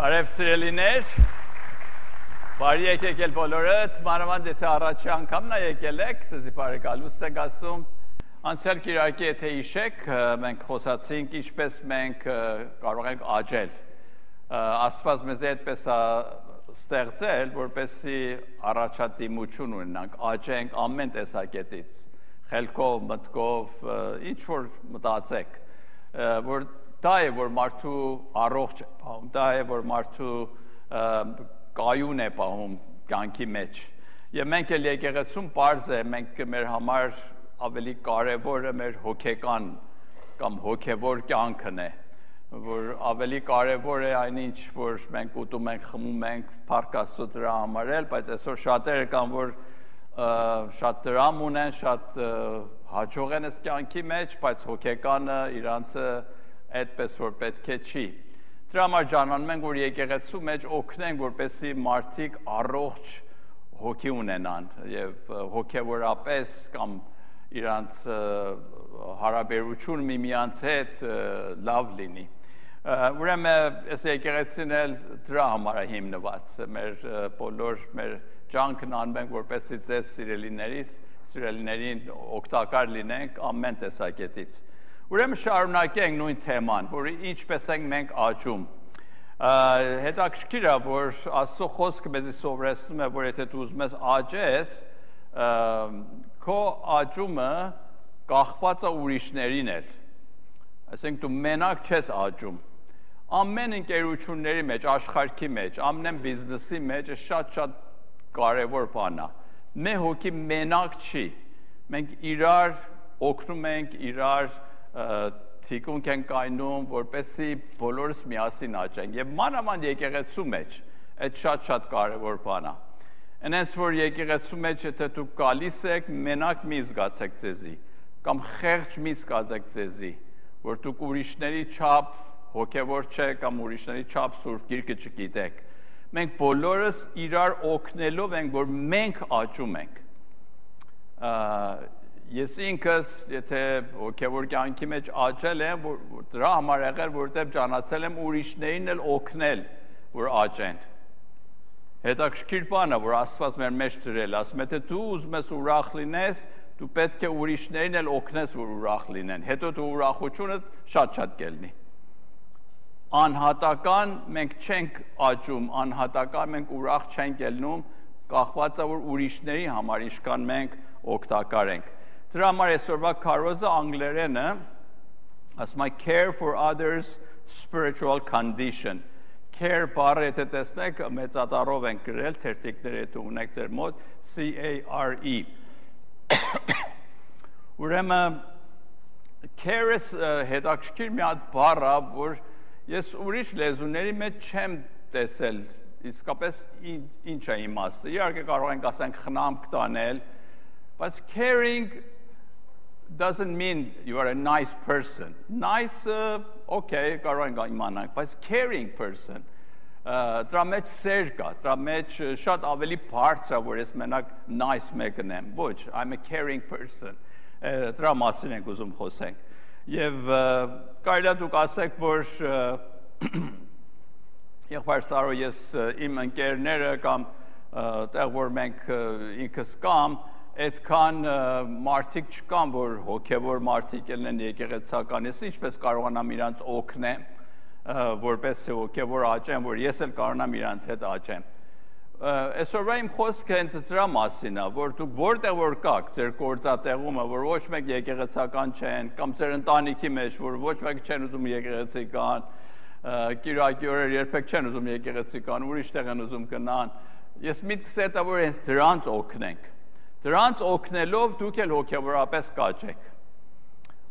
Բարև սիրելիներ, բարի եկեք էլ բոլորդ, մանավանդ եթե առաջի անգամն է եկել եք, ձեզի բարեկալուստ ենք ասում, անցյալ կիրակի եթե հիշեք, մենք խոսացինք ինչպես մենք կարող ենք աճել, Աստված մեզ այդպես է ստեղծել, որպեսզի առաջադիմություն ունենանք, աճենք ամեն տեսակետից, խելքով, մտքով, ինչ որ մտածեք, որ դա է, որ մարդու առողջ է պահում, դա է, որ մարդու կայուն է պահում կյանքի մեջ։ Եվ մենք էլ եկեղեցում պարզ է, մենք մեր համար ավելի կարևորը մեր հոգեկան կամ հոգևոր կյանքն է, որ ավելի կարևոր է այնինչ, որ մենք ուտում ենք, խմում ենք, փառք Աստծո դրա համար էլ, բայց այսօր շատերը կան, որ շատ դրամ ունեն, շատ հաջող են այս կյանքի մեջ, բայց հոգեկանը իրանցը այդպես որ պետք է չի։ Դրա համար ջանանում ենք, որ եկեղեցու մեջ օգնենք, որպեսզի մարդիկ առողջ հոգի ունենան եւ հոգեվորապես կամ իրանց հարաբերություն միմյանց հետ լավ լինի։ Ուրեմն այս եկեղեցին էլ դրա համար է հիմնված, մեր բոլոր մեր ջանքն անում ենք, որպեսզի ձեզ սիրելիներին օգտակար լինենք ամեն տեսակետից։ Ուրեմն շարունակենք նույն թեման, որ ինչպես ենք մենք աճում։ Հետաքրքիր է, որ Աստծո խոսքը մեզ սովորեցնում է, որ եթե դու ուզում ես աճես, քո աճումը կախված է ուրիշներին էլ։ Այսինքն դու մենակ չես աճում։ Ամեն ընկերությունների մեջ, աշխարհի մեջ, ամեն բիզնեսի մեջ շատ կարևոր բան է։ Մեր հոգի մենակ չի։ Մենք իրար օգնում ենք, իրար թիկունք են կայնում, որպեսզի բոլորս միասին աճենք։ Եվ մանավանդ եկեղեցու մեջ այդ շատ կարևոր բան է։ Այնպես որ եկեղեցու մեջ եթե դու գալիս եք, մենակ մի զգացեք ձեզի, կամ խեղճ մի զգացեք ձեզի, որ դուք ուրիշների չափ հոգևոր չեք կամ ուրիշների չափ Սուրբ Գիրքը չգիտեք։ Մենք բոլորս իրար օգնելով ենք, որ մենք աճում ենք։ Ես ինքս, եթե հոգևոր կյանքի մեջ աճել եմ, դրա համար եղել, որտեղ ճանաչել եմ ուրիշներին էլ օգնել, որ աճեն։ Հետաքրքիր բան է, որ Աստված մեր մեջ դրել, ասում է, թե դու ուզում ես ուրախ լինես, դու պետք է ուրիշներին էլ օգնես, որ ուրախ լինեն։ Հետո դու ուրախությունը շատ կելնի։ Անհատական մենք չենք աճում, անհատական մենք ուրախ չենք ելնում, կախված է, որ ուրիշների համար ինչքան մենք օգտակար ենք։ Դրա համար այսօրվա քարոզը անգլերենը ասում է care for others spiritual condition։ Care բառը եթե տեսնեք մեծատառով են գրել, թերթիկները եթե ունեք ձեր մոտ C-A-R-E։ Ուրեմն care-ը հետաքրքիր մի հատ բառ է, որ ես ուրիշ լեզուների մեջ չեմ տեսել իսկապես ինչ է իմաստը։ Իհարկե կարող ենք ասենք խնամք տանել, բայց caring doesn't mean you are a nice person. Nice, okay, կարող ենք իմանանք, բայց caring person, դրա մեջ սեր կա, դրա մեջ շատ ավելի բարձր է, որ ես մենակ nice մեկն եմ, ոչ, I'm a caring person, դրա մասին ենք ուզում խոսենք, և կարելի է դուք ասեք, որ եղբայր Սարո ես իմ ընկերները կամ տեղ, որ մենք ինքս կամ, այդքան մարդիկ չկան, որ հոգևոր մարդիկ են եկեղեցական, ես ինչպես կարողանամ իրանց օգնեմ, որպես հոգևոր աճեմ, որ ես էլ կարողանամ իրանց հետ աճեմ։ Այսօրվա իմ խոսքը հենց դրա մասին է, որ դուք որտեղ որ կաք, ձեր գործատեղումը, որ ոչ մեկ եկեղեցական չեն, կամ ձեր ընտանիքի մեջ, որ ոչ մեկ չեն ուզում եկեղեցի կան, կիրակի օրեր երբեք չեն ուզում եկեղեցի կան, ուրիշ տեղ են ուզում գնան, ես միտքս է, որ հենց դրանց օգնենք։ Դրանց օգնելով դուք էլ հոգևորապես կաճեք։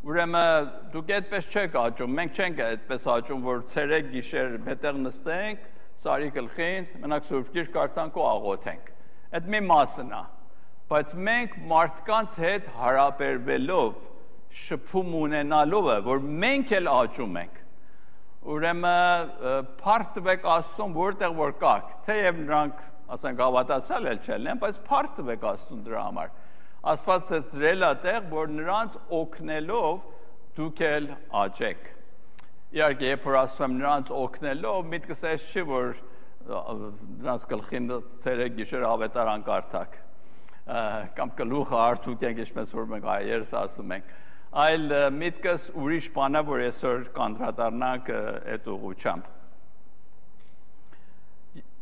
Ուրեմն դուք այդպես չեք աճում, մենք չենք այդպես աճում, որ ցերեկ գիշեր մետեղ նստենք, սարի գլխին, մենակ Սուրբ Գիրք կարդանք ու աղոթենք։ Այդ մի մասն է, բայց մենք մարդկանց հետ հարաբերվելով, շփում ունենալով է, որ մենք էլ աճում ենք։ Ուրեմն փառք տվեք Աստծուն, որտեղ որ կաք, թեև նրանք ասենք հավատացյալ էլ չեն, բայց փառք տվեք Աստծուն դրա համար։ Աստված դրել է տեղ, որ նրանց օգնելով դուք էլ աճեք։ իհարկե երբ որ ասում եմ նրանց օգնելով, միտքս այս չի, որ նրանց գլխին ցերեկ գիշեր ավետարան կարդակ, կամ գլուխը հարթուկենք, ինչպես որ մենք հայերս ասում ենք, այլ միտքս ուրիշ բան է, որ այսօր կանդրադառնանք այդ ուղղությամբ։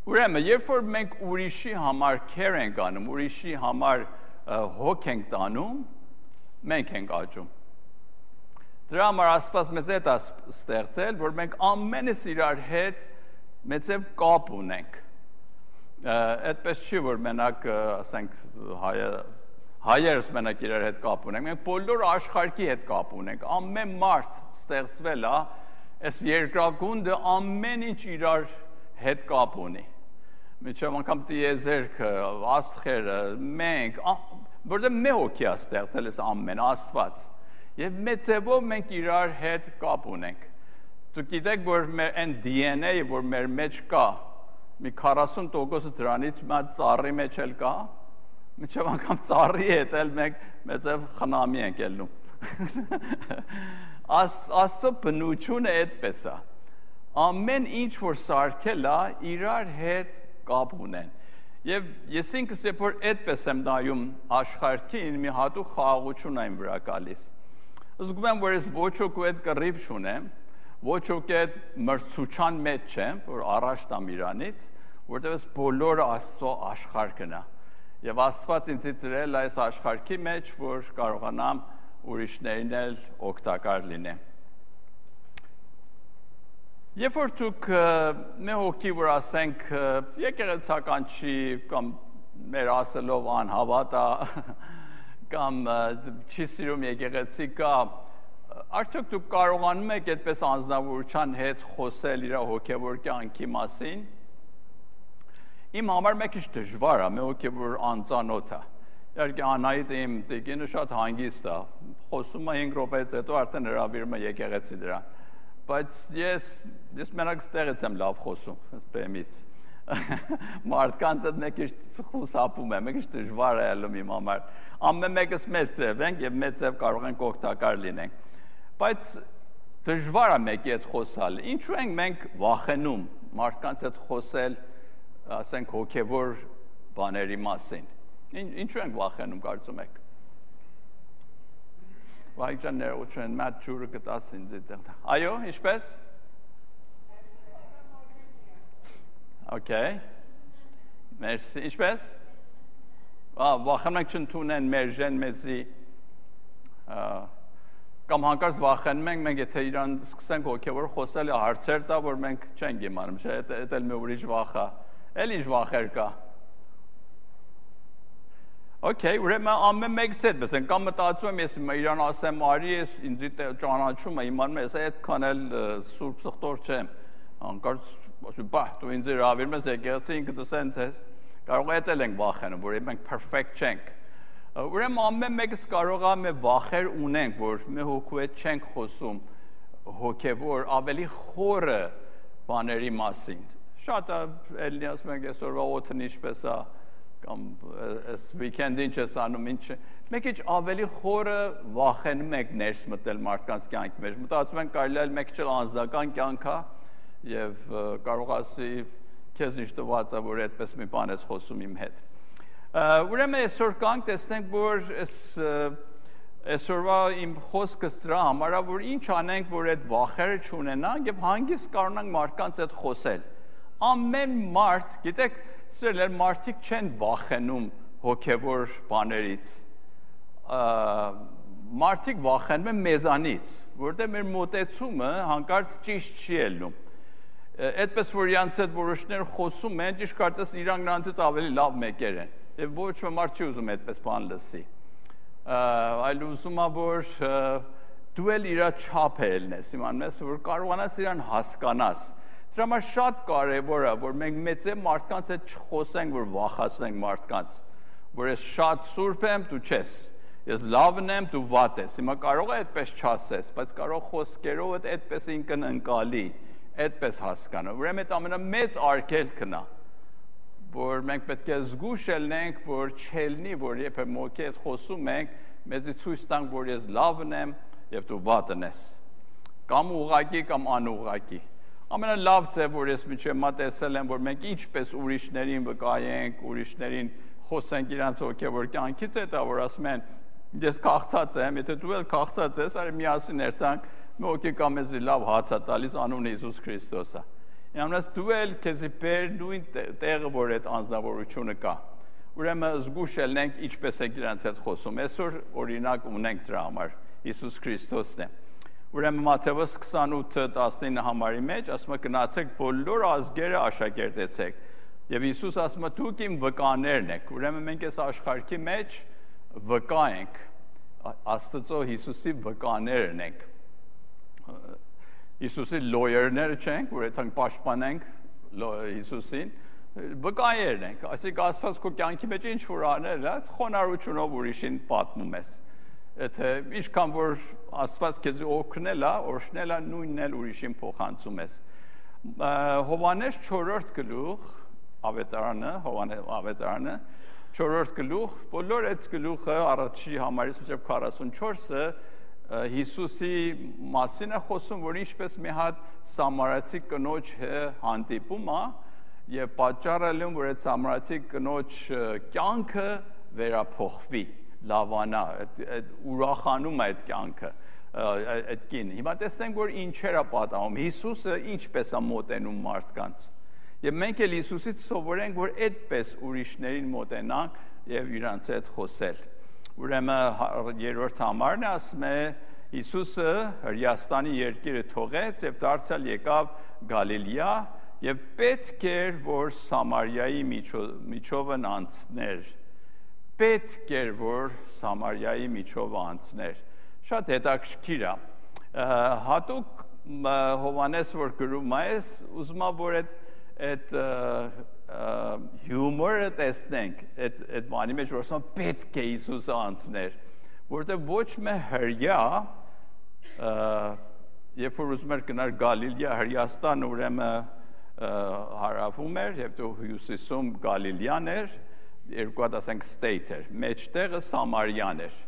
Ուրեմն, երբ որ մենք ուրիշի համար care ենք անում, ուրիշի համար հոգ ենք տանում, մենք ենք աճում։ Դրա համար Աստված մեզ հետ է ստեղծել, որ մենք ամենս իրար հետ մեծև կապ ունենք։ Այդպես չի, որ մենակ, ասենք, հայերս մենակ իրար հետ կապ ունենք, մենք բոլոր աշխարհի հետ կապ ունենք, ամեն մարդ ստեղծվել է, այս երկրագունդը ամեն ինչ իրար հետ կապ ունի։ Միջև անգամ տիեզերքը, աստղերը, մենք, որտեղ մի հոգի է ստեղծել այս ամեն Աստված։ Եվ մեծևով մենք իրար հետ կապ ունենք։ Դուք գիտեք, որ մեր այն DNA-ը, որ մեր մեջ կա, մի 40% դրանից մի ծառի մեջ էլ կա, միջև անգամ ծառի հետ էլ մենք մեծև խնամի ենք ելնում։ Աստծո բնությունը այդպես է։ Ամեն ինչ, որ սարքել է, իրար հետ կապ ունեն։ Եվ ես ինքս երբ որ այդպես եմ նայում աշխարհին, մի հատուկ խաղաղություն այն վրա գալիս։ Զգում եմ, որ ես ոչ ոքի հետ կռիվ չունեմ, ոչ ոքի հետ մրցության մեջ չեմ, որ առաջ տամ իրանից, որտեղ ես բոլորը Աստծո աշխարհն է։ Եվ Աստված ինձ դրել այս աշխարհի մեջ, որ կարողանամ ուրիշներին էլ օգտակար լինեմ։ Երբ որ դուք մի հոգի, որ ասենք եկեղեցական չի, կամ մեր ասելով անհավատ է, կամ չի սիրում եկեղեցի կա, արդյոք դուք կարողանում եք այդպես անձնավորության հետ խոսել իր հոգևոր կյանքի մասին։ Իմ համար մեկ քիչ դժվար է, մի հոգի, որ անծանոթ է։ Իհարկե Անահիտը իմ տիկինը շատ հանգիստ է, խոսում է 5 րոպեից հետո արդեն հրավիրում է եկեղեցի դրան։ Բայց ես մենակ ստեղից եմ լավ խոսում, բեմից։ Մարդկանց հետ մեկ քիչ խուսափում եմ, մեկ քիչ դժվար է ելնում իմ համար։ Ամեն մեկս մեծ ձև ենք եւ մեծ ձև կարող ենք օգտակար լինենք։ Բայց դժվար է մեկի հետ խոսալ։ Ինչու ենք մենք վախենում մարդկանց հետ խոսել, ասենք հոգեվոր բաների մասին։ Ինչու ենք վախենում, կարծում եք։ Վայջան ներողություն, մատ ջուրը կտաս ինձ այդտեղ։ Այո, ինչպես։ Okay. Մերսի, ինչպես։ Վախենում ենք չընդունեն մեր ժեն մեզի, կամ հանկարծ վախենում ենք, մենք եթե իրան սկսենք հոգևոր խոսել հարցեր տա, որ մենք չենք իմանում, չէ, այդ էլ մի ուրիշ վախ է, էլ ինչ վախեր կա։ Okay, ուրեմն ամեն մեկս այդպես են, կամ մտածում եմ, ես իրան ասեմ, արի ես ինձ ճանաչում է, իմանում ես, այդքան էլ սուրբ սխտոր չեմ, հանկարծ ասում, բա, դու ինձ հրավիրում ես եկեղեցի, ինքդ սենց ես, կարող է էլ ենք վախենում, որ մենք perfect չենք։ Ուրեմն ամեն մեկս կարող է մի վախեր ունենք, որ մի հոգու հետ չենք խոսում հոգևոր ավելի խորը բաների մասին։ Շատ էլի ասում ենք այսօրվա օդն ինչպես է, կամ այս weekend-ին չես անում, ինչ մեկ ինչ ավելի խորը վախենում եք ներս մտել մարդկանց կյանքի մեջ։ Մտածում ենք կարելի է մեկ ինչ անձնական կյանք է եւ կարող ասի քեզ ինչ տված է, որ այդպես մի բան ես խոսում իմ հետ։ Ուրեմն այսօր կանք տեսնենք, որ այսօրվա իմ խոսքս դրա համար է, որ ինչ անենք, որ այդ վախերը չունենանք եւ հանգիստ կարողանանք մարդկանց հետ խոսել։ Ամեն մարդ, գիտեք, սիրել մարդիկ չեն վախենում հոգևոր բաներից։ Մարդիկ վախենում են մեզանից, որտեղ մեր մոտեցումը հանկարծ ճիշտ չի ելնում։ Այդպես որ իրանց հետ որոշներ խոսում են, ճիշտ կարծես իրանք նրանցից ավելի լավ մեկեր են։ Եվ ոչ մի մարդ չի ուզում այդպես բան լսի։ Այլ ուզում է, որ դու էլ իր չափը ելնես, իմանում ես, որ կարողանաս իրան հասկանաս։ Դրա համար շատ կարևոր է, որ մենք մեծե մարդկանց հետ չխոսենք, որ վախացնենք մարդկանց, որ ես շատ սուրբ եմ, դու չես, ես լավն եմ, դու վատ ես։ Հիմա կարող է այդպես չասես, բայց կարող խոսքերով այդպես ինքնընկալի, այդպես հասկանալ։ Ուրեմն այդ ամենամեծ արգելքն է, որ մենք պետք է զգուշ ելնենք, որ չելնի, որ երբ մոքի հետ խոսում ենք, մեզի ցույց տանք, որ ես լավն եմ եւ դու վատն ես։ կամ ուղղակի կամ անուղղակի։ Ամենալավ ձև, որ ես միջև մա տեսել եմ, որ մենք ինչպես ուրիշներին վկայենք, ուրիշներին խոսենք իրանց հոգևոր կյանքից, հետո որ ասում են, ես քաղցած եմ, եթե դու էլ քաղցած ես, արի միասին երթանք, մի հոգի կա մեզի լավ հաց է տալիս, անունը Հիսուս Քրիստոս է։ Իրանց դու էլ քեզի բեր նույն տեղը, որ այդ անձնավորությունը կա։ Ուրեմն զգուշ ելնենք ինչպես ենք իրանց հետ խոսում։ Այսօր օրինակ ունենք դրա համար Հիսուս Քրիստոսն է։ Ուրեմն Մատթեոս 28:19 համարի մեջ ասում է գնացեք բոլոր ազգերը աշակերտեցեք։ Եվ Հիսուս ասում է դուք իմ վկաներն եք։ Ուրեմն մենք այս աշխարհի մեջ վկա ենք, Աստծո Հիսուսի վկաներն ենք։ Հիսուսի լոյերները չենք, որ այդքան պաշտպանենք Հիսուսին, վկայերն ենք։ Այսինքն Աստված քո կյանքի մեջ ինչ որ անել է, խոնարհությունով ուրիշին պատմում ես։ Եթե ինչքան որ Աստված քեզ օգնել է, օրհնել է, նույնն էլ ուրիշին փոխանցում ես։ Հովհաննես 4-րդ գլուխ ավետարանը 4-րդ գլուխ, բոլոր այդ գլուխը առաջի համարից մինչև 44-ը Հիսուսի մասին է խոսում, որ ինչպես մի հատ սամարացի կնոջ հանդիպում է եւ պատճառը որ այդ սամարացի կնոջ կյանքը վերափոխվի, լավանա, ուրախանում է այդ կյանքը, այդ կինը։ Հիմա տեսնենք, որ ինչեր է պատահում, Հիսուսը ինչպես է մոտենում մարդկանց։ Եվ մենք էլ Հիսուսից սովորենք, որ այդպես ուրիշներին մոտենանք եւ իրանց հետ խոսել։ Ուրեմն երրորդ համարն է, ասում է Հիսուսը Հրեաստանի երկիրը թողեց եւ դարձյալ եկավ Գալիլեա եւ պետք էր, որ Սամարիայի միջովն անցներ։ Պետք էր, որ Սամարիայի միջովը անցներ։ Շատ հետաքրքիր է։ Հատուկ Հովհաննես որ գրում է, ուզում եմ որ այդ հյումորը տեսնենք, այդ բանի մեջ որ ասում պետք է Հիսուսը անցներ, որտեղ ոչ մի հրյա, երբ որ ուզում էր գնալ Գալիլեա, Հրեաստան ուրեմն հարավում էր եւ դու հյուսիսում Գալիլեան էր, երկու հատ ասենք state էր, մեջտեղը Սամարիան էր։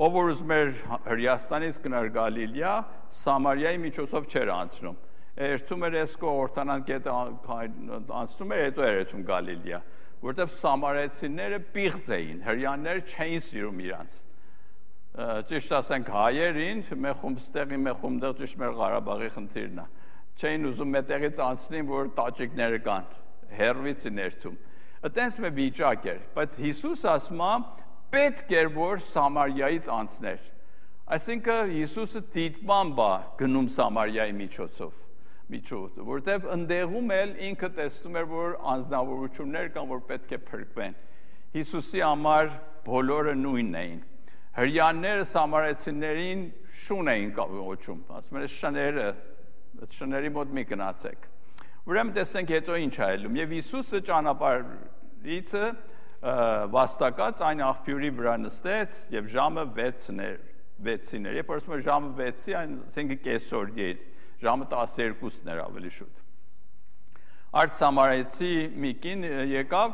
Ով որ ուզում էր Հրեաստանից գնալ Գալիլեա, Սամարիայի միջոցով չէր անցնում։ Երթում էր Էսկո Օրտանան գետը անցնում էր, հետո էր երթում Գալիլեա, որտեղ սամարեցիները պիղծ էին, հրեաները չէին սիրում իրանց։ Ճիշտ ասենք հայերին, մեխումստեղի մեխումդեղ ճիշտ մեր Ղարաբաղի խնդիրն է։ Չէին ուզում մետեղից անցնին, որ տաճիկները կան, հերվից ներթում։ Այդպես մի վիճակ էր, բայց Հիսուս ասում է պետք էր որ Սամարիայից անցներ։ Այսինքն Հիսուսը դիտմամբ է գնում Սամարիայի միջոցով, որտեղ ընդեղում էլ ինքը տեսնում էր, որ անձնավորություններ կան, որ պետք է փրկվեն։ Հիսուսի համար բոլորը նույնն էին։ Հրեաները սամարեցիներին շուն էին կոչում, ասում են շների մոտ մի գնացեք։ Ուրեմն տեսենք հետո ինչ է ելում։ Եվ Հիսուսը ճանապարհիցը վաստակած այն աղբյուրի վրա նստեց եւ ժամը 6-ին էր։ Երբ ասում եմ ժամը 6-ի, այսինքն կեսօրի էր, ժամը 12-ն էր ավելի շուտ։ Արդ Սամարեցի մի կին եկավ,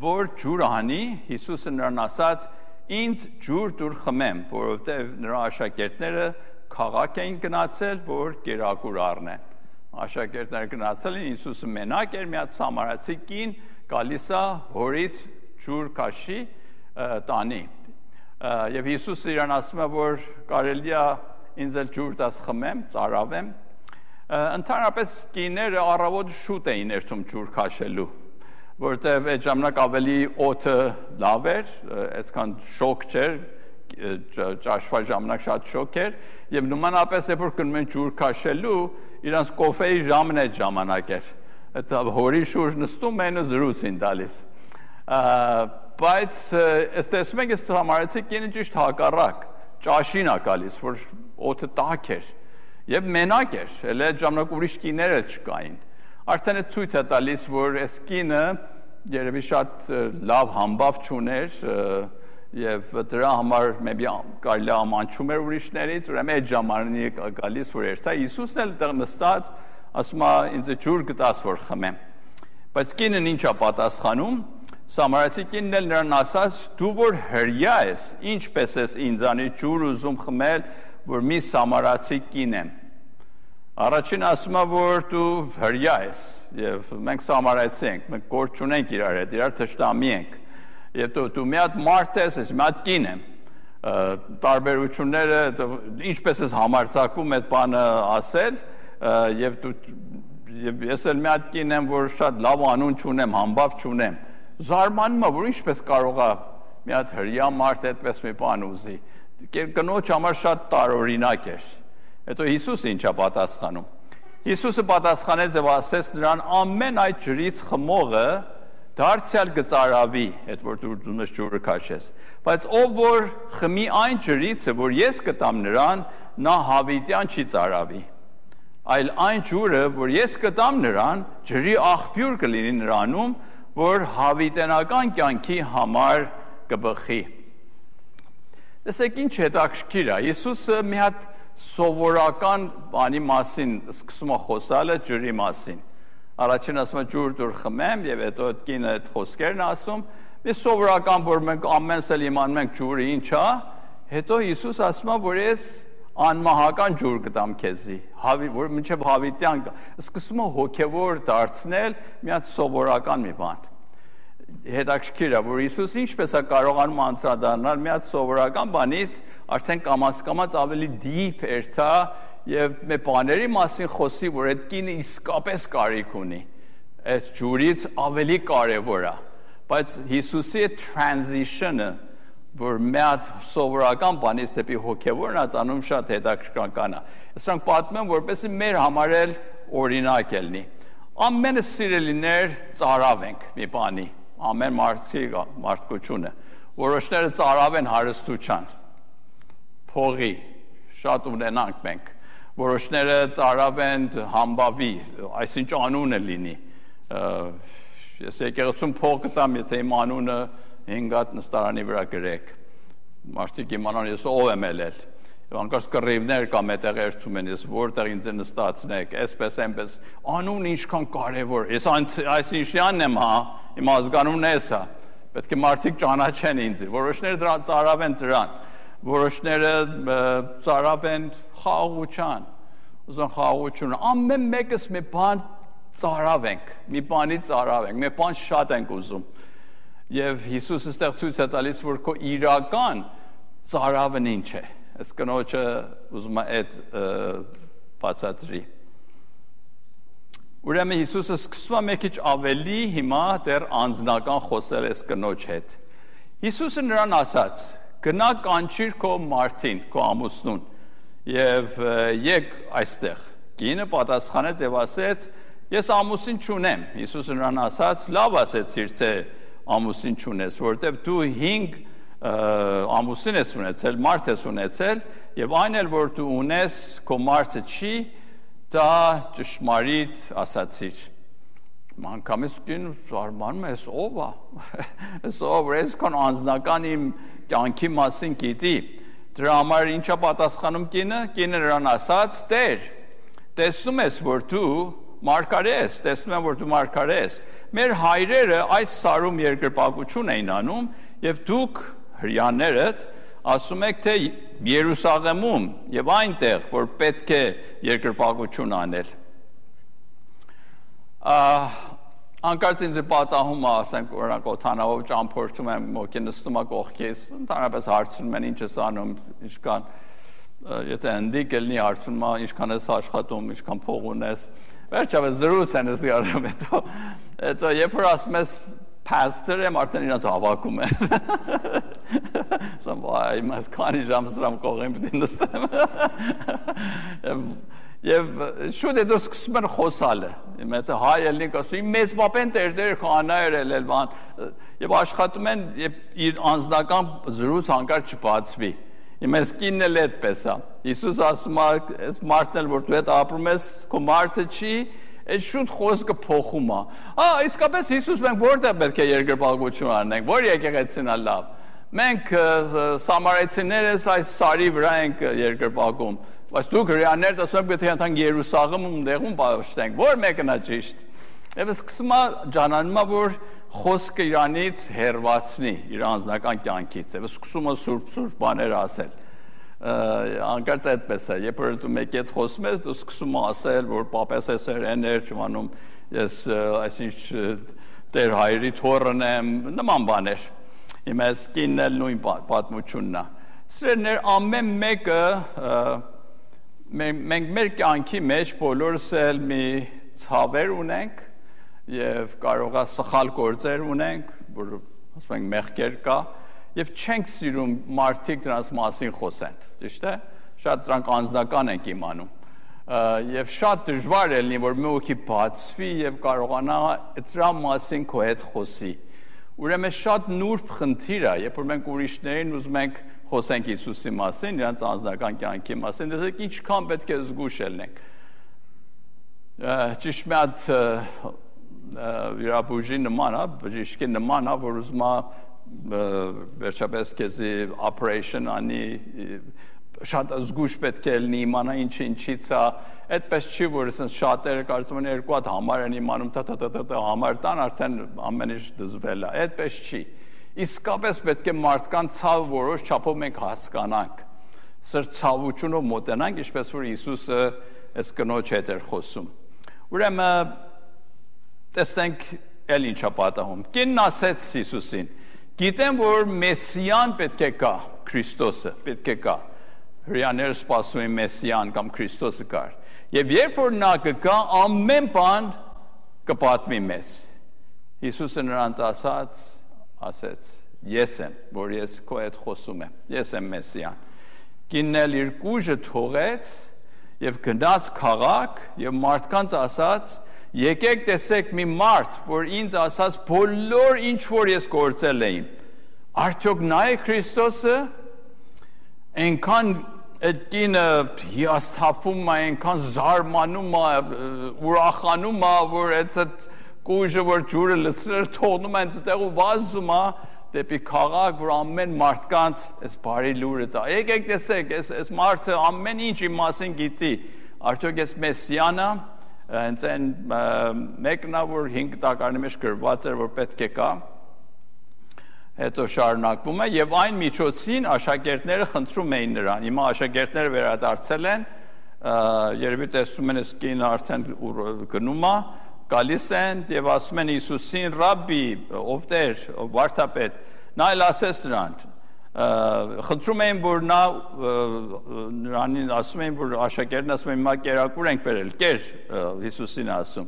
որ ջուր անի, Հիսուսը նրան ասաց. «Ինձ ջուր դուր խմեմ», որովհետև նրա աշակերտները քաղաք էին գնացել, որ կերակուր առնեն։ Աշակերտները գնացել են, Հիսուսը մենակ էր, մի հատ սամարացի կին գալիս է հորից ջուր քաշի տանի։ Եվ Հիսուսը իրան ասում է, որ կարելի է ինձ էլ ջուր տաս խմեմ, ծարավեմ։ Ընդհանրապես կիները առավոտ շուտ էին երթում ջուր քաշելու, որտեղ այդ ժամանակ ավելի օդը լավ էր, այսքան շոկ չէր, ճաշվա ժամանակ շատ շոկ էր, եւ նմանապես երբ որ գնում են ջուր քաշելու, իրանց կոֆեի ժամն այդ ժամանակ էր։ Այդ հորի շուրջ նստում են ու զրույցին տալիս։ Բայց ըստ տեսնում եք, այս համարեցի կինը ճիշտ հակառակ, ճաշին է գալիս, որ օդը տաք էր եւ մենակ էր, էլ այդ ժամանակ ուրիշ կիներ էլ չկային։ Արդեն այդ ցույց է տալիս, որ այս կինը երևի շատ լավ համբավ չուներ եւ դրա համար maybe կարելի է ամանչում էր ուրիշներից, ուրեմն այդ ժամանակի գալիս որ երթա Հիսուսն էլ դեռ նստած ասում է ինձ ջուր գտաս որ խմեմ։ Բայց կինն ինչ է պատասխանում, Սամարացի կինն էլ նրան ասաց, դու որ հրյա ես, ինչպես ես ինձանից ջուր ուզում խմել, որ մի սամարացի կին եմ։ Առաջին ասում է, որ դու հրյա ես, եւ մենք սամարացի ենք, մենք գործ չունենք իրար հետ, իրար թշնամի ենք։ Եվ դու մի հատ մարդ ես, ես մի հատ կին եմ։ Տարբերությունները ինչպես ես համարձակվում այդ բանը ասել, եւ ես էլ մի հատ կին եմ, որ շատ լավ անուն չունեմ, համբավ չունեմ։ Զարմանում եմ, որ ինչպես կարող է մի հատ հրյա մարդ այդպես մի բան ուզի։ Կնոջ համար շատ տարօրինակ էր։ Հետո Հիսուսը ինչա պատասխանում։ Հիսուսը պատասխանեց եւ ասեց նրան ամեն այդ ջրից խմողը դարձյալ գծարավի, այդ որ դու նշ ջուրը քաշես։ Բայց ով որ խմի այն ջրից, որ ես կտամ նրան, նա հավիտյան չի ծարավի։ Այլ այն ջուրը, որ ես կտամ նրան, ջրի աղբյուր կլինի նրանում, որ հավիտենական կյանքի համար կբխի։ Տեսեք ինչ հետաքրքիր է։ Հիսուսը մի հատ սովորական բանի մասին սկսում է խոսալը ջրի մասին։ Առաջին ասում է ջուր դուր խմեմ եւ հետո այդ կինը այդ խոսքերն ասում։ Մի սովորական որ մենք ամենս էլ իմանում ենք ջուրը ինչ է, հետո Հիսուս ասում է որ ես անմահական ջուր կտամ քեզի, որ մինչև հավիտյան սկսում է հոգեվոր դարձնել մի հատ սովորական մի բան։ Հետաքրքիր է, որ Հիսուս ինչպես է կարողանում անդրադառնալ մի հատ սովորական բանից արդեն կամաց ավելի դիփ երթա եւ մի բաների մասին խոսի, որ այդ կինը իսկապես կարիք ունի։ Այդ ջուրից ավելի կարեւոր է։ Բայց Հիսուսի transition-ը, որ մի հատ սովորական բանից դեպի հոգեվորն է տանում, շատ հետաքրքրական է։ Սրանք պատմում եմ, որպեսզի մեր համար էլ օրինակ ելնի։ Ամենը սիրելիներ ծարավ ենք մի բանի։ Ամեն մարդկությունը, որոշները ծարավ են հարստության, փողի, շատ ունենանք մենք, որոշները ծարավ են համբավի, այսինչ անունը լինի, ես եկեղեցում փող կտամ, եթե իմ անունը 5 հատ նստարանի վրա գրեք, մարդիկ իմանան ես ով եմ ելել, անկարծ կռիվներ կամ այդտեղ երթում են, ես որտեղ ինձ նստացնեք, այսպես այնպես, անուն ինչքան կարևոր, ես այսինչյանն եմ, հա, իմ ազգանունն էս է, պետք է մարդիկ ճանաչեն ինձ, որոշները դրան ծարավ են դրան, որոշները ծարավ են խաղաղության, ուզում խաղաղությունը, ամեն մեկս մի բան ծարավ ենք, մի բանի ծարավ ենք, մի բան շատ ենք ուզում, եւ Հիսուսը ստեղ ցույց է տալիս, որ քո իրական ծարավն ինչ է, այս կնոջը ուզում է այդ բացատրի։ Ուրեմն Հիսուսը սկսում է մի քիչ ավելի հիմա դեռ անձնական խոսել այս կնոջ հետ։ Հիսուսը նրան ասաց. «Գնա կանչիր քո մարդին, քո ամուսնուն, եւ եկ այստեղ»։ Կինը պատասխանեց եւ ասեց. «Ես ամուսին չունեմ»։ Հիսուսը նրան ասաց. «Լավ ասեցիր, թե ամուսին չունես, որտեւ դու 5 ամուսին ես ունեցել, մարդ ես ունեցել, եւ այն էլ որ դու ունես, քո մարդը չի, դա ճշմարիտ ասացիր»։ Անկամից կին զարմանում է, «Էս ով է»։ Էս ով է, այսքան անձնական իմ կյանքի մասին գիտի։ Դրա համար ինչա պատասխանում կինը։ Կինը նրան ասաց. «Տեր, տեսնում ես, որ դու մարգարե ես, տեսնում եմ, որ դու մարգարե ես։ Մեր հայրերը այս սարում երկրպագություն էին անում, եւ դուք հրյաներդ ասում եք, թե Երուսաղեմում եւ այնտեղ, որ պետք է երկրպագություն անել»։ Անկարծ ինձ պատահում է, ասենք, օրինակ օթանավով ճամփորդում եմ, մոկի նստում է կողքից, ընդհանրապես հարցնում են ինչ ես անում, ինչքան, եթե հնդիկ ելնի հարցնում է, ինչքան ես աշխատում, ինչքան փող ունես, վերջապես զրույց են ես գարում, հետո երբ որ ասում ես pastor եմ, արդեն իրաց հավաքում են։ Ասում վայ, ես քանի ժամ սրամ կողին պիտի նստեմ։ Եվ շուտ հետո սկսում են խոսալը։ Եթե հայ ելնիկ ասում, մեծ պապեն տերդեր քահանայր ելել բան, եւ աշխատում են, եւ իր անձնական զրույց հանկարծ չբացվի։ Ես կինն էլ այդպես է։ Հիսուս ասում է, այս մարդն էլ որ դու հետ ապրում ես, քո մարդը չի, այս շուտ խոսքը փոխում է։ Իսկապես Հիսուս մենք որտեղ պետք է երկրպագություն անենք, որ եկեղեցին է լավ։ Մենք սամարայցիներս այս սարի վրա ենք երկրպագում, բայց դուք հրեաներդ ասում եք պետք է ընթանք Երուսաղեմում դեղում պաշտենք, որ մեկն է ճիշտ։ Եվ սկսում է ջանանում է, որ խոսքը իրանից հեռացնի իր անձնական կյանքից, եւ սկսում է սուրբ բաներ ասել։ անկարծ այդպես է, երբ որ դու մեկի հետ խոսում ես, դու սկսում ես ասել, որ պապես ես էներ, չմանում, ես այսինչ Տեր հայրի թոռն եմ, նման բաներ։ Իմ այս կինն էլ նույն պատմությունն է։ Սիրելիներ, ամեն մեկը մենք մեր կյանքի մեջ բոլորս էլ մի ցավեր ունենք եւ կարող է սխալ գործեր ունենք, որ ասում ենք մեղքեր կա եւ չենք սիրում մարդիկ դրանց մասին խոսեն, ճիշտ է։ Շատ դրանք անձնական ենք իմանում։ Եվ շատ դժվար է լինի, որ մի օքի բացվի եւ կարողանա դրա մասին քո հետ խոսի։ Ուրեմն շատ նուրբ խնդիր է, երբ որ մենք ուրիշներին ուզում ենք խոսենք Հիսուսի մասին, նրանց անձնական կյանքի մասին, դեռ ինչքան պետք է զգուշ լինենք։ Ճիշտ մի հատ վիրաբույժի նման է, բժիշկի նման է, որ ուզում է վերջապես քեզի operation անի, շատ զգուշ պետք է լինի, իմանա ինչից է, այդպես չի, որ շատերը կարծում են երկու հատ համար են իմանում, համար տան, արդեն ամեն ինչ դզվել է, այդպես չի։ Իսկապես պետք է մարդկանց ցավը որոշ չափով մենք հասկանանք, սր ցավությունով մոտենանք, ինչպես որ Հիսուսը այս կնոջ հետ էր խոսում։ Ուրեմն տեսնենք էլ ինչա պատահում։ Կինն ասեց Հիսուսին. «Գիտեմ, որ Մեսիան պետք է գա, Քրիստոսը պետք է գա»։ Հրեաները սպասում են Մեսիան կամ Քրիստոսը գար։ Եվ երբ որ նա կգա, ամեն բան կպատմի մեզ։ Հիսուսը նրանց ասեց. «Ես եմ, որ ես քո հետ խոսում եմ, ես եմ Մեսիան»։ Կինն էլ իր կուժը թողեց եւ գնաց քաղաք եւ մարդկանց ասաց. «Եկեք տեսեք մի մարդ, որ ինձ ասաց բոլոր ինչ որ ես գործել եմ։ Արդյոք նա է Քրիստոսը»։ Այնքան այդ կինը հիասթափվում է, այնքան զարմանում է, ուրախանում է, որ այդ կուժը, որ ջուրը լցրել թողնում է այնտեղ ու վազում է դեպի քաղաք, որ ամեն մարդկանց այս բարի լուրը տա։ Եկեք տեսեք, այս մարդը ամեն ինչ իմ մասին գիտի։ Արդյոք ես Մեսիանը, հենց այն մեկն է, որ 5 տակարանի մեջ գրված էր, որ պետք է կա։ Հետո շարունակվում է եւ այն միջոցին աշակերտները խնդրում էին նրան։ Հիմա աշակերտները վերադարձել են, երևի տեսնում են այս կինը արդեն գնում է, գալիս են եւ ասում են Հիսուսին. «Ռաբբի, ով Տեր, ով վարդապետ», նա էլ ասեց նրան, խնդրում էին, որ նրանին ասում էին, որ աշակերտն ասում են, հիմա կերակուր ենք բերել, կեր, Հիսուսին ասում։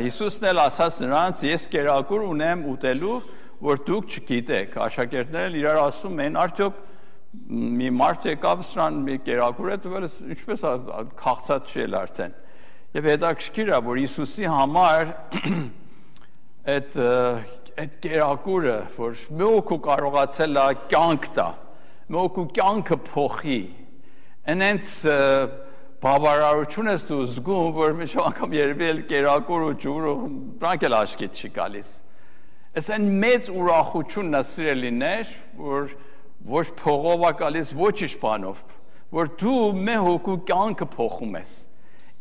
Հիսուսն էլ ասաց նրանց. «Ես կերակուր ունեմ ուտելու, որ դուք չգիտեք»։ Աշակերտներն իրար ասում են. «Արդյոք մի մարդ եկավ սրան մի կերակուր է տվել, ինչպես քաղցած չի էլ արդեն»։ Եվ հետաքրքիր է, որ Հիսուսի համար այդ կերակուրը, որ մի օգու կարողացել է կյանք տա, մի օգու կյանքը փոխի, այնց բավարարություն ես դու զգում, որ մի անգամ երևի էլ կերակուր ու ջուր ու դրանք էլ աչքիդ չի գալիս։ Այս այն մեծ ուրախությունն է, սիրելիներ, որ ոչ փողով է գալիս, ոչ ինչ բանով, որ դու մի հոգու կյանքը փոխում ես։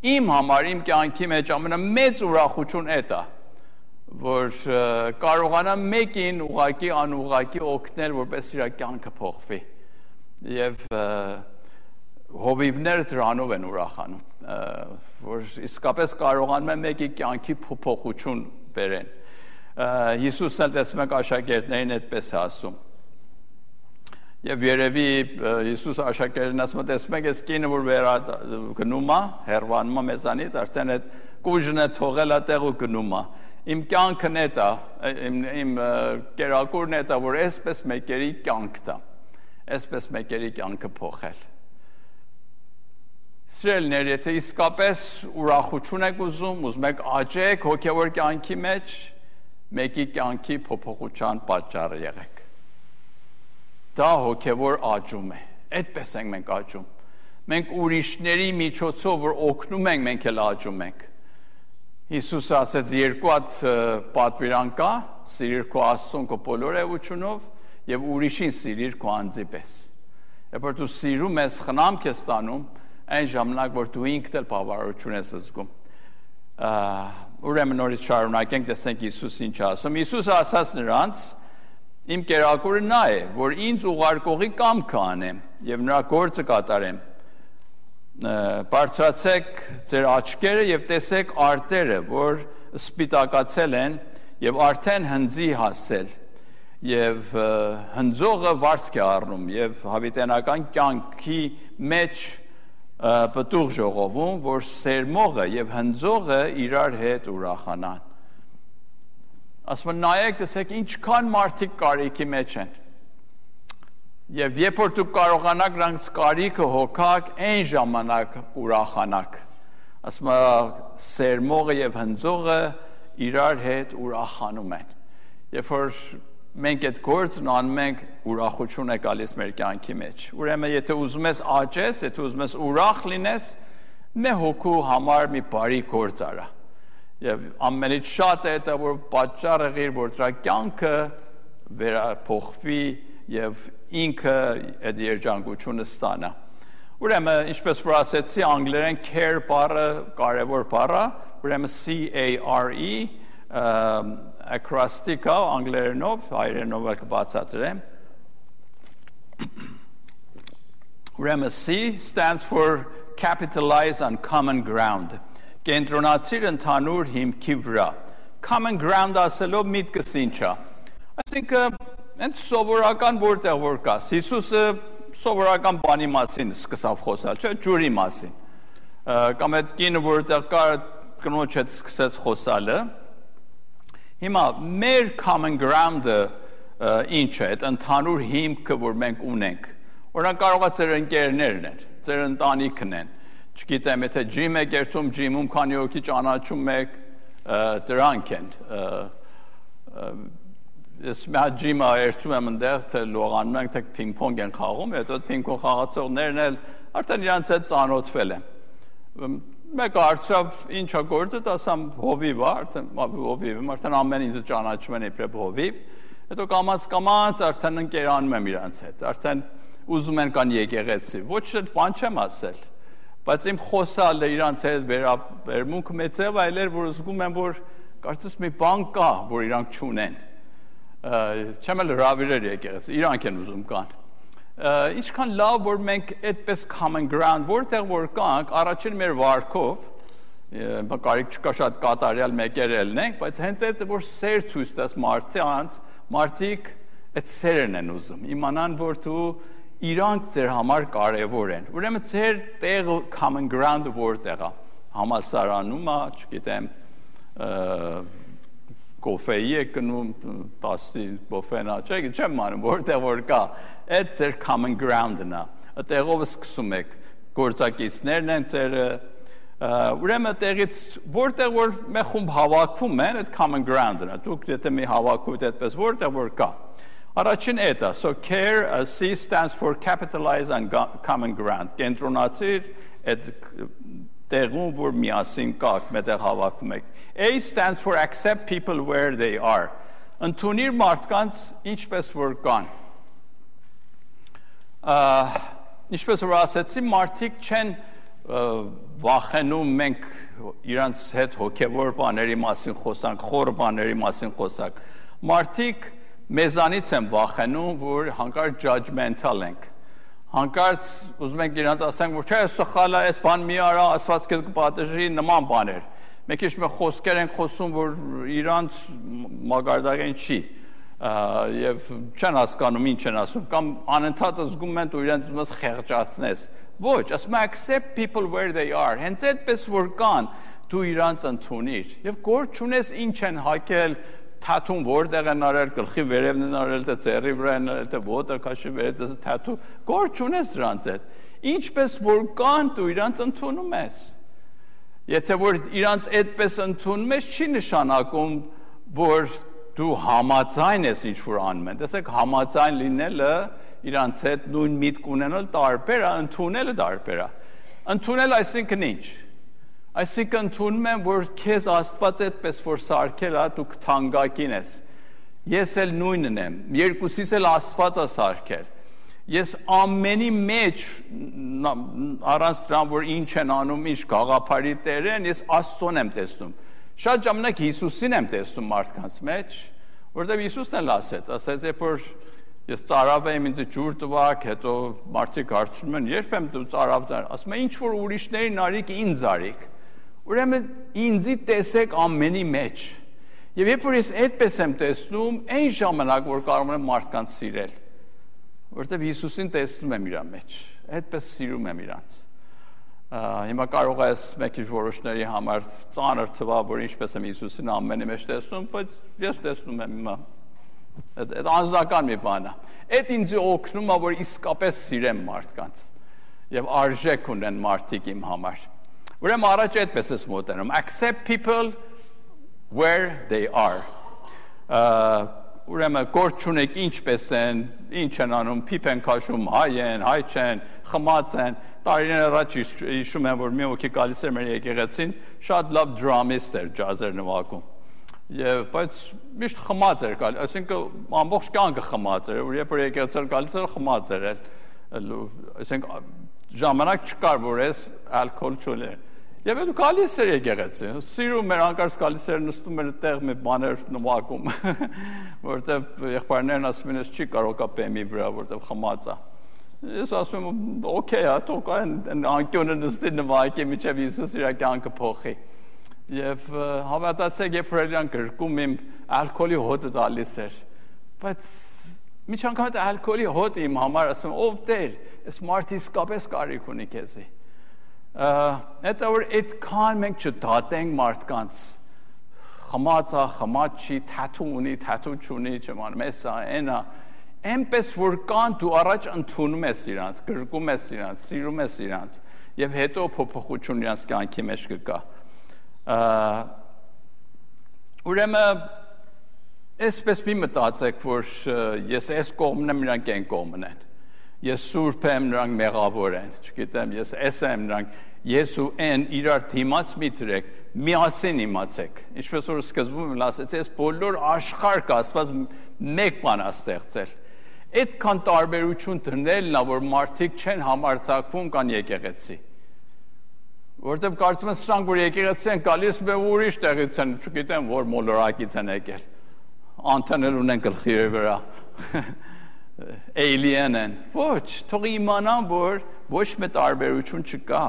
Իմ համար, իմ կյանքի մեջ ամենամեծ ուրախություն էդ է, որ կարողանամ մեկին ուղղակի անուղղակի օգնել, որպես իր կյանքը փոխվի։ Եվ հովիվները դրանով են ուրախանում, որ իսկապես կարողանում են մեկի կյանքի փոփոխություն բերեն։ Հիսուսն էլ տեսնում եք աշակերտներին այդպես է ասում։ Եվ երևի Հիսուս աշակերտներին ասում է, տեսնում եք, այս կինը, որ գնում է, հեռանում է մեզանից, արդեն այդ կուժն է թողել է տեղ ու գնում է։ Իմ կյանքն է դա, իմ կերակուրն է դա, որ այսպես մեկերի կյանք տա, այսպես մեկերի կյանքը փոխել։ Սիրելիներ, եթե իսկապես ուրախություն եք ուզում եք աճեք հոգևոր կյանքի մեջ, մեկի կյանքի փոփոխության պատճառը եղեք։ Դա հոգևոր աճում է, այդպես ենք մենք աճում։ Մենք ուրիշների միջոցով, որ օգնում ենք, մենք էլ աճում ենք։ Հիսուսը ասեց, 2 հատ պատվիրան կա, սիրիր քո Աստծուն քո բոլոր էությունով եւ ուրիշին սիրիր քո անձի պես։ Երբ որ դու սիրում ես, խնամք ես ստանում, այն ժամանակ, որ դու ինքդ էլ բավարարություն ես զգում։ Ուրեմն նորից շարունակենք, տեսնենք Հիսուս ինչ ասում։ Հիսուսը ասաց նրանց. «Իմ կերակուրը նա է, որ ինձ ուղարկողի կամքը անեմ, եւ նրա գործը կատարեմ։ Բարձրացեք ձեր աչքերը եւ տեսեք արտերը, որ սպիտակացել են եւ արդեն հնձի հասել եւ հնձողը վարձք է առնում եւ հավիտենական կյանքի մեջ պտուղ ժողովում, որ սերմողը եւ հնձողը իրար հետ ուրախանան։ Ասում են նայեք, տեսեք ինչքան մարդիկ կարիքի մեջ են։ Եվ երբ որ դուք կարողանաք նրանց կարիքը հոգաք, այն ժամանակ ուրախանաք։ Ասում է սերմողը եւ հնձողը իրար հետ ուրախանում են։ Երբ որ մենք այդ գործն անում ենք, ուրախություն է գալիս մեր կյանքի մեջ։ Ուրեմն եթե ուզում ես աճես, եթե ուզում ես ուրախ լինես, մի հոգու համար մի բարի գործ արա։ Եվ ամենից շատ է դա, որ պատճառ եղիր, որ դրա կյանքը վերափոխվի եւ ինքը այդ երջանկությունը ստանա։ Ուրեմն, ինչպես որ ասեցի, անգլերեն care բառը կարևոր բառ է, ուրեմն C-A-R-E acrostic անգլերենով, հայերենով կբացատրեմ։ Ուրեմն C stands for capitalize on common ground։ Կենտրոնացիր ընդհանուր հիմքի վրա։ Common ground ասելով միտքս ինչ է։ Այսինքն Ընդ սովորական որտեղ որ կաս, Հիսուսը սովորական բանի մասին սկսավ խոսալ, չէ, ջուրի մասին։ Կամ այդ կինը որտեղ կար կնոջ հետ սկսեց խոսալը։ Հիմա մեր common ground-ը ինչ է, այդ ընդհանուր հիմքը, որ մենք ունենք։ Օրինակ կարող է ձեր ընկերներն են, ձեր ընտանիքն են։ Չգիտեմ, եթե ջիմ եք երթում, ջիմում քանի հոգի ճանաչում եք, դրանք են։ Ես մի հատ ջիմը երթում եմ ընդեղ, թե լողանում ենք, թե պինգ-պոնգ են խաղում, հետո պինգ-պոնգ խաղացողներն էլ արդեն իրանց հետ ծանոթվել են։ Մեկը հարցավ ինչ է գործը, ասամ հովիվ է, արդեն ամեն ինձ ճանաչում են իբրև հովիվ, հետո կամաց արդեն ընկերանում եմ իրանց հետ, արդեն ուզում են կան եկեղեցի, ոչ բան չեմ ասել, բայց իմ խոսալը իրանց հետ վերաբերմունքը մեծ է, այլ էր, որ զգում եմ, որ կարծես մի բան կա, որ իրանք չունեն, չեմ էլ հրավիրել եկեղեցի, իրանք են ուզում կան։ Ինչքան լավ, որ մենք այդպես common ground, որտեղ որ կանք, առաջին մեր վարքով, կարիք չկա շատ կատարյալ մեկեր ելնենք, բայց հենց այդ, որ սեր ցույց տաս մարդիկ այդ սերն են ուզում, իմանան, որ դու իրանք ձեր համար կարևոր են։ Ուրեմն ձեր տեղը common ground-ը որտեղ է, համալսարանում է, չգիտեմ, կոֆեի է կնում, 10 բոֆենա, չեմ անում, որտեղ որ կա, այդ ձեր common ground-ն է, այդտեղով սկսում եք, գործակիցներն են ձերը, ուրեմն տեղից, որտեղ որ մի խումբ հավաքվում են, այդ common ground-ն է, դուք եթե մի հավաքուთ այդպես, որտեղ որ կա, առաջին այդ է, so care, C stands for capitalize on common ground, կենտրոնացիր այդ տեղում, որ միասին կաք, մետեղ հավաքվում եք, A stands for accept people where they are. Ընդունիր մարդկանց ինչպես որ կան։ Ինչպես որ ասեցի, մարդիկ չեն վախենում մենք իրանց հետ հոգևոր բաների մասին խոսանք, խորը բաների մասին խոսանք։ Մարդիկ մեզանից են վախենում, որ հանկարծ judgmental ենք։ Հանկարծ ուզում ենք իրանց ասենք, որ չէ, սխալ է, այս բան մի արա, Աստված քեզ կպատժի, նման բաներ։ Մենք ինչ-որ խոսքեր ենք խոսում, որ իրանց մագարտակեն չի, եւ չեն հասկանում ինչ են ասում, կամ անընդհատ զգում են ու իրենց ուզում ես խեղճացնես։ Ոչ, ասում եմ accept people where they are, հենց այդպես որ կան, դու իրանց ընդունիր, եւ գործ չունես ինչ են հակել, թաթուն որտեղ են արել, գլխի վերևն են արել, թե ծերի վրա են արել, թե ոտը քաշի վերև, թաթու, գործ չունես դրանց հետ։ Ինչպես որ կան, դու իրանց ընդունում ես։ Եթե որ իրանց այդպես ընդունում ես, չի նշանակում, որ դու համաձայն ես ինչ-որ անում են։ Տեսեք, համաձայն լինելը իրանց հետ նույն միտք ունենալ տարբեր է, ընդունելը տարբեր է։ Ընդունել այսինքն ինչ։ Այսինքն ընդունում եմ, որ քեզ Աստված այդպես որ սարքել է, դու թանկագին ես։ Ես էլ նույնն եմ, երկուսիս էլ Աստված է սարքել։ Ես ամենի մեջ առանց դրան, որ ինչ են անում, ինչ գաղափարի տեր են, ես Աստծուն եմ տեսնում։ Շատ ժամանակ Հիսուսին եմ տեսնում մարդկանց մեջ, որտեղ Հիսուսն էլ ասեց, երբ որ Ես ծարավ եմ ինձ ջուր տվակ, հետո մարդիկ հարցնում են, երբ եմ դու ծարավներ, ասում են ինչ որ ուրիշներին արիք ինձ արիք։ Ուրեմն ինձի տեսեք ամենի մեջ։ Եվ երբ որ ես այդպես եմ տեսնում, այն ժամանակ որ կարող եմ մարդկանց սիրել, որտեղ Հիսուսին տեսնում եմ իր մեջ, այդպես սիրում եմ իրանց։ Հիմա կարող ես մեկ ինչ որոշների համար ծանր թվա, որ ինչպես եմ Հիսուսին ամենի մեջ տեսնում, բայց ես տեսնում եմ հիմա։ Այդ անձնական մի բան է։ Այդ ինձ օգնում է, որ իսկապես սիրեմ մարդկանց եւ արժեք ունեն մարդիկ իմ համար։ Ուրեմն առաջ այդպես ես մոտենում. accept people where they are. Ուրեմն գործ չունեք ինչպես են, ինչ են անում, փիփ են քաշում, հայ են, հայ չեն, խմած են։ Տարիներ առաջ հիշում եմ, որ մի հոգի գալիս էր մեր եկեղեցին, շատ լավ դրամիստ էր, ջազեր նվագում։ Եվ բայց միշտ խմած էր գալիս, այսինքն ամբողջ կյանքը խմած էր, որ երբ որ եկեղեցին գալիս էր խմած էր, այսինքն ժամանակ չկար, որ ես ալկոհոլ չուներ։ Եվ դու գալիս էր եկեղեցի, սիրում էր անկարծ գալիս էր նստում էր այդտեղ մի բաներ նվագում, որտեվ եղբայրներն ասում են, ես չի կարող կա բեմի վրա, որտեվ խմած է։ Ես ասում եմ, օքեյ, թող այն անկյունը նստի նվագի, մինչև Հիսուս իր կյանքը փոխի։ Եվ հավատացեք, երբ որ իրան գրկում իմ ալկոհոլի հոտը տալիս էր, բայց միջ անգամ այդ ալկոհոլի հոտը իմ համար ասում եմ, ով Տեր, այս մարդը իսկապես կարիք ունի քեզի։ Հետո որ այդքան մենք չդատենք մարդկանց, խմած է, խմած չի, թաթու ունի, թաթու չունի, չմանում, էսա, այնա, այնպես որ կան դու առաջ ընդունում ես իրանց, գրկում ես իրանց, սիրում ես իրանց, եւ հետո փոփոխություն իրանց կյանքի մեջ կգա։ Ուրեմն այսպես մի մտածեք, որ ես այս կողմն եմ, նրանք այն կողմն են։ Ես սուրբ եմ, նրանք մեղավոր են, չգիտեմ, ես այս եմ, նրանք ես ու այն իրար դիմաց մի դրեք, միասին իմացեք։ Ինչպես որ սկզբում եմ ասացի, ես բոլոր աշխարհ կասված մեկ բան ստեղծել։ Այդքան տարբերություն դնելն է, որ մարդիկ չեն համարձակվում կան եկեղեցի։ Որտեւ կարծում են սրանք որ եկեղեցի են գալիս ու ուրիշ տեղից են, չգիտեմ, որ մոլորակից են եկել։ Անտանել ունեն գլխի վրա։ Alien են։ Ոչ, թող իմանան, որ ոչ մի տարբերություն չկա։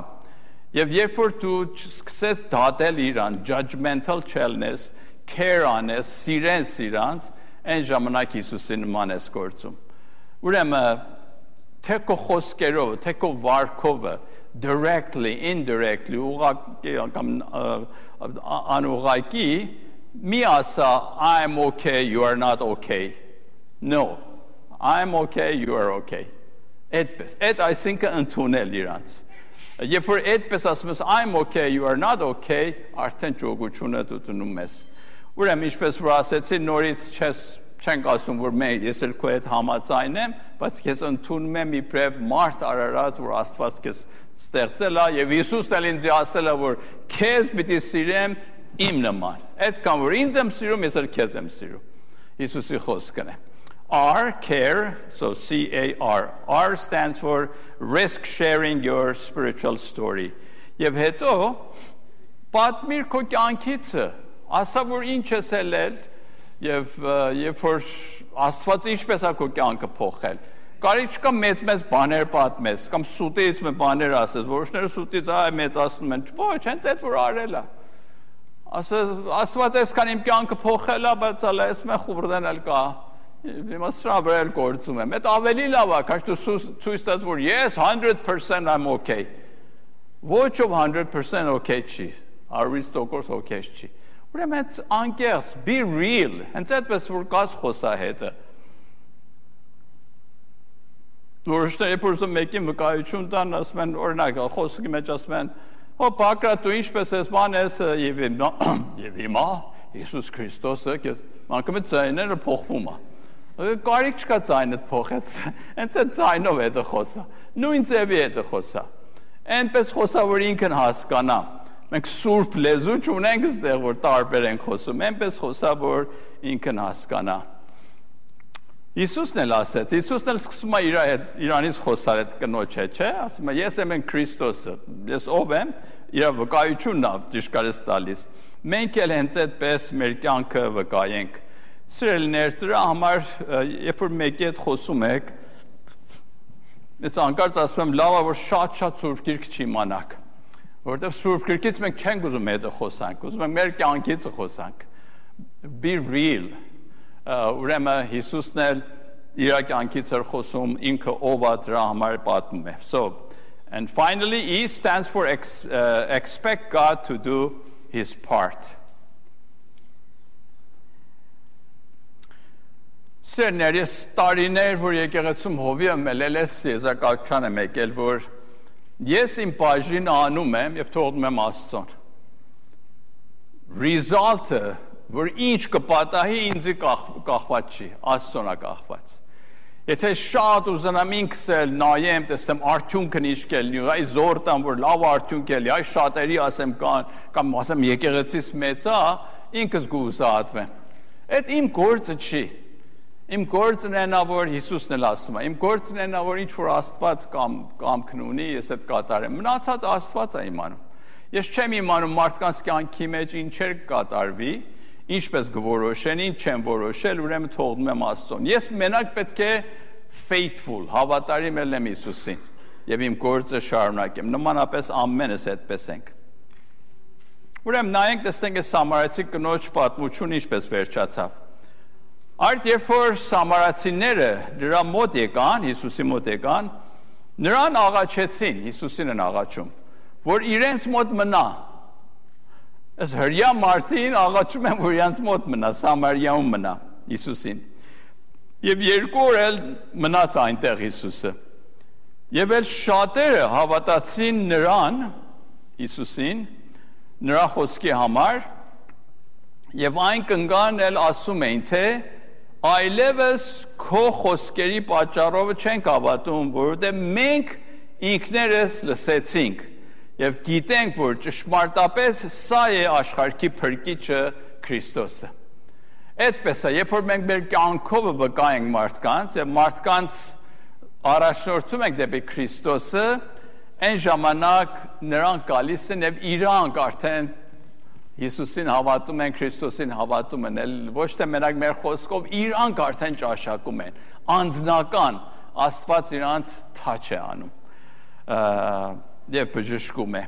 Եվ երբ որ դու սկսես դատել իրան, judgmental չելնես, care անես, սիրես իրանց, այն ժամանակ Հիսուսի նման ես գործում։ Ուրեմն թե քո խոսքերով, թե քո վարքով, directly, indirectly, անուղղակի, մի ասա, I'm okay, you are not okay. No. I'm okay, you are okay. Այդպես, այդ այսինքն ընդունել իրանց։ Երբ որ այդպես ասում ես I'm okay, you are not okay, արդեն ճոգությունը դու դնում ես։ Ուրեմն ինչպես որ ասեցի, նորից չենք ասում, որ ես էլ քո հետ համաձայն եմ, բայց քեզ ընդունում եմ իբրև մարդ արարած, որ Աստված քեզ ստեղծել է եւ Հիսուսն էլ ինձ ասել է, որ քեզ պիտի սիրեմ իմ նման։ Այդքան որ ինձ եմ սիրում, ես էլ քեզ եմ սիրում։ Հիսուսի խոսքն է։ R, care, so C-A-R. R stands for risk sharing your spiritual story. Եվ հետո, պատմիր քո կյանքիցը, ասա, որ ինչ ես ելել, եւ որ Աստված ինչպես է քո կյանքը փոխել։ Կարիք չկա մեծ բաներ պատմես, կամ սուտից մի բաներ ասես, որոշները սուտից մեծացնում են, ոչ, հենց այդ որ արել է։ Աստված այսքան իմ կյանքը փոխել է, բայց այս մե խուրդեն էլ կա։ Հիմա սրա վրա էլ գործում եմ։ Այդ ավելի լավ է, քան դու ցույց տաս, որ yes, 100% I'm okay։ Ոչ ով 100% okay չի, 100% okay չի։ Ուրեմն այդ անկեղծ, be real, հենց այդպես որ կաս խոսահետը։ Որոշները փորձում մեկին վկայություն տան, ասում են, օրինակ, խոսքի մեջ ասում են, «Հո Պակրատ, դու ինչպես ես բան ես եւ հիմա Հիսուս Քրիստոսը, անկամ ձայները փոխվում է»։ Կարիք չկա ձայնը փոխես, հենց այդ ձայնով է դա խոսա։ Նույն ձևի է դա խոսա։ Այնպես խոսա, որ ինքն հասկանա։ Մենք սուրբ լեզու չունենք այստեղ, որ տարբեր ենք խոսում, այնպես խոսա, որ ինքն հասկանա։ Հիսուսն էլ ասեց, Հիսուսն էլ սկսում է իրանից խոսալ այդ կնոջ հետ, չէ՞, ասում է, ես եմ Քրիստոսը, ես ով եմ, իր վկայությունն է ճիշտ կարես տալիս։ Մենք էլ հենց այդպես մեր կյանքը վկայենք։ Սիրելիներ, դրա համար երբ որ մեկի հետ խոսում եք, ես անկարծ ասում եմ լավ է որ շատ Սուրբ Գիրք չիմանաք, որովհետև Սուրբ Գիրքից մենք չենք ուզում հետը խոսանք, ուզում ենք մեր կյանքից խոսանք, be real, ուրեմն Հիսուսն էլ իր կյանքից էր խոսում, ինքը ով է դրա համար պատմում է. So, and finally, E stands for expect God to do his part. Սերներ, ես տարիներ, որ եկեղեցում հովի եմ ելել ես եզակացության եմ եկել, որ ես իմ բաժինը անում եմ և թողնում եմ Աստծուն. Result-ը, որ ինչ կպատահի ինձի կախված չի, Աստծուն է կախված. Եթե շատ ուզենամ ինքս էլ նայեմ, տեսեմ արդյունքն ինչ կելնի, այ զոր տամ, որ լավ արդյունք էլի, այ շատերի ասեմ կամ ասեմ եկեղեցիս մեծ է, ինքս գուզատվեմ. Այդ իմ գործը չի. Իմ գործն է նա, որ Հիսուսն էլ ասում է, իմ գործն է նա, որ ինչ-որ Աստված կամքն ունի, ես այդ կատարեմ, մնացած Աստված է իմանում, ես չեմ իմանում մարդկանց կյանքի մեջ ինչեր կատարվի, ինչպես կորոշեն, ինչ չեմ որոշել, ուրեմն թողնում եմ Աստծուն, ես մենակ պետք է faithful, հավատարիմ ելնեմ Հիսուսին, և իմ գործը շարունակեմ, նմանապես ամենս այդպես ենք, ուրեմն նայենք տեսնենք այս սամարացի կնոջ պատմություն ինչպես վերջացավ. Այդ երբ որ սամարացիները նրա մոտ եկան, Հիսուսի մոտ եկան, նրան աղաչեցին, Հիսուսին են աղաչում, որ իրենց մոտ մնա. Այս հրյա մարդին աղաչում են, որ իրենց մոտ մնա, Սամարիայում մնա Հիսուսին. Եվ 2 օր էլ մնաց այնտեղ Հիսուսը. Եվ էլ շատերը հավատացին նրան, Հիսուսին, նրա խոսքի համար, եւ այն կնգան էլ ասում էին, թե այլևս քո խոսքերի պատճառով չենք հավատում, որովհետեւ մենք ինքներս լսեցինք եւ գիտենք, որ ճշմարտապես սա է աշխարհի փրկիչը Քրիստոսը։ Այդպես է, երբ որ մենք մեր կյանքով վկայենք մարդկանց եւ մարդկանց առաջնորդում ենք դեպի Քրիստոսը, այն ժամանակ նրանք գալիս են եւ իրանք արդեն Հիսուսին հավատում են, Քրիստոսին հավատում են, ոչ թե մենակ մեր խոսքով, իրանք արդեն ճաշակում են, անձնական, Աստված իրանց թաչ է անում և բժշկում է։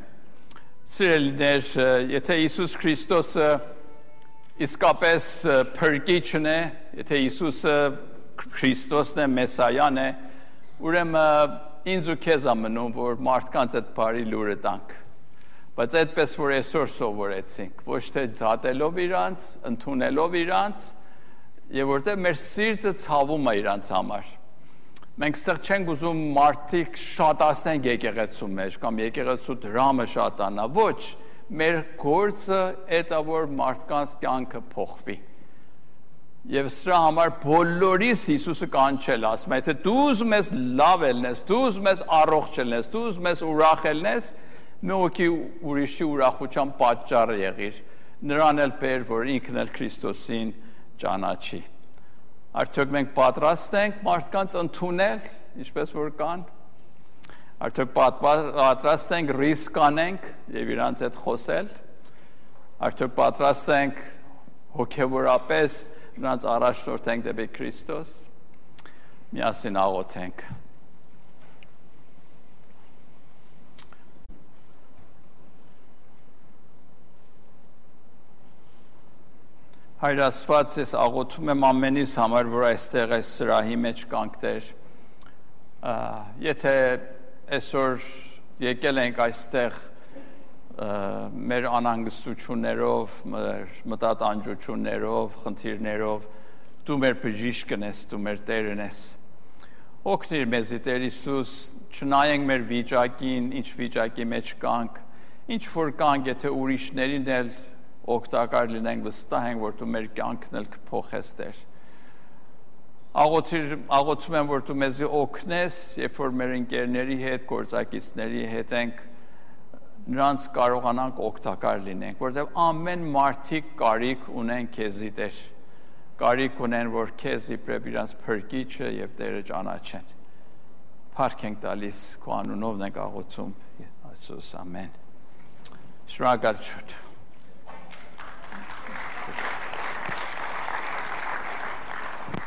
Սիրելիներ, եթե Հիսուս Քրիստոսը իսկապես փրկիչն է, եթե Հիսուսը Քրիստոսն է, Մեսայան է, ուրեմն ինձ ու քեզ է մնում, որ մարդկանց այդ բարի լուրը տանք։ Բայց այդպես որ այսօր սովորեցինք, ոչ թե դատելով իրանց, ընդունելով իրանց, եւ որտեղ մեր սիրտը ցավում է իրանց համար։ Մենք ստեղ չենք ուզում մարդիկ շատացնենք եկեղեցու մեջ կամ եկեղեցու դրամը շատանա, ոչ, մեր գործը այդ է որ մարդկանց կյանքը փոխվի։ Եվ սրա համար բոլորիս Հիսուսը կանչել, ասում է, թե դու ուզում ես լավ ելնես, դու ուզում ես առողջ ելնես, դու ուզում ես ուրախ ելնես, մեկի ուրիշի ուրախության պատճառը եղիր, նրան էլ բեր, որ ինքն էլ Քրիստոսին ճանաչի։ Արդյոք մենք պատրաստ ենք մարդկանց ընդունել, ինչպես որ կան, արդյոք պատրաստ ենք ռիսկ անենք և իրանց հետ խոսել, արդյոք պատրաստ ենք հոգևորապես նրանց առաջնորդենք դեպի Քրիստոս, միասին աղոթենք։ Հայր Աստված, ես աղոթում եմ ամենիս համար, որ այստեղ այս սրահի մեջ կանք Տեր, եթե այսօր եկել ենք այստեղ մեր անհանգստություններով, մեր մտատանջություններով, խնդիրներով, դու մեր բժիշկն ես, դու մեր Տերն ես։ Օգնիր մեզի Տեր Հիսուս, չնայենք մեր վիճակին, ինչ վիճակի մեջ կանք, ինչ որ կանք, եթե ուրիշներին էլ օգտակար լինենք, վստահ ենք, որ դու մեր կյանքն էլ կփոխես Տեր։ Աղոթում եմ, որ դու մեզի օգնես, երբ որ մեր ընկերների հետ, գործակիցների հետ ենք, նրանց կարողանանք օգտակար լինենք, որտեղ ամեն մարդիկ կարիք ունեն քեզի Տեր, կարիք ունեն, որ քեզ իբրև իրանց փրկիչը եւ Տերը ճանաչեն։ Փառք ենք տալիս քո անունով ենք աղոթում, Հիսուս, ամեն։ Շնորհակալություն։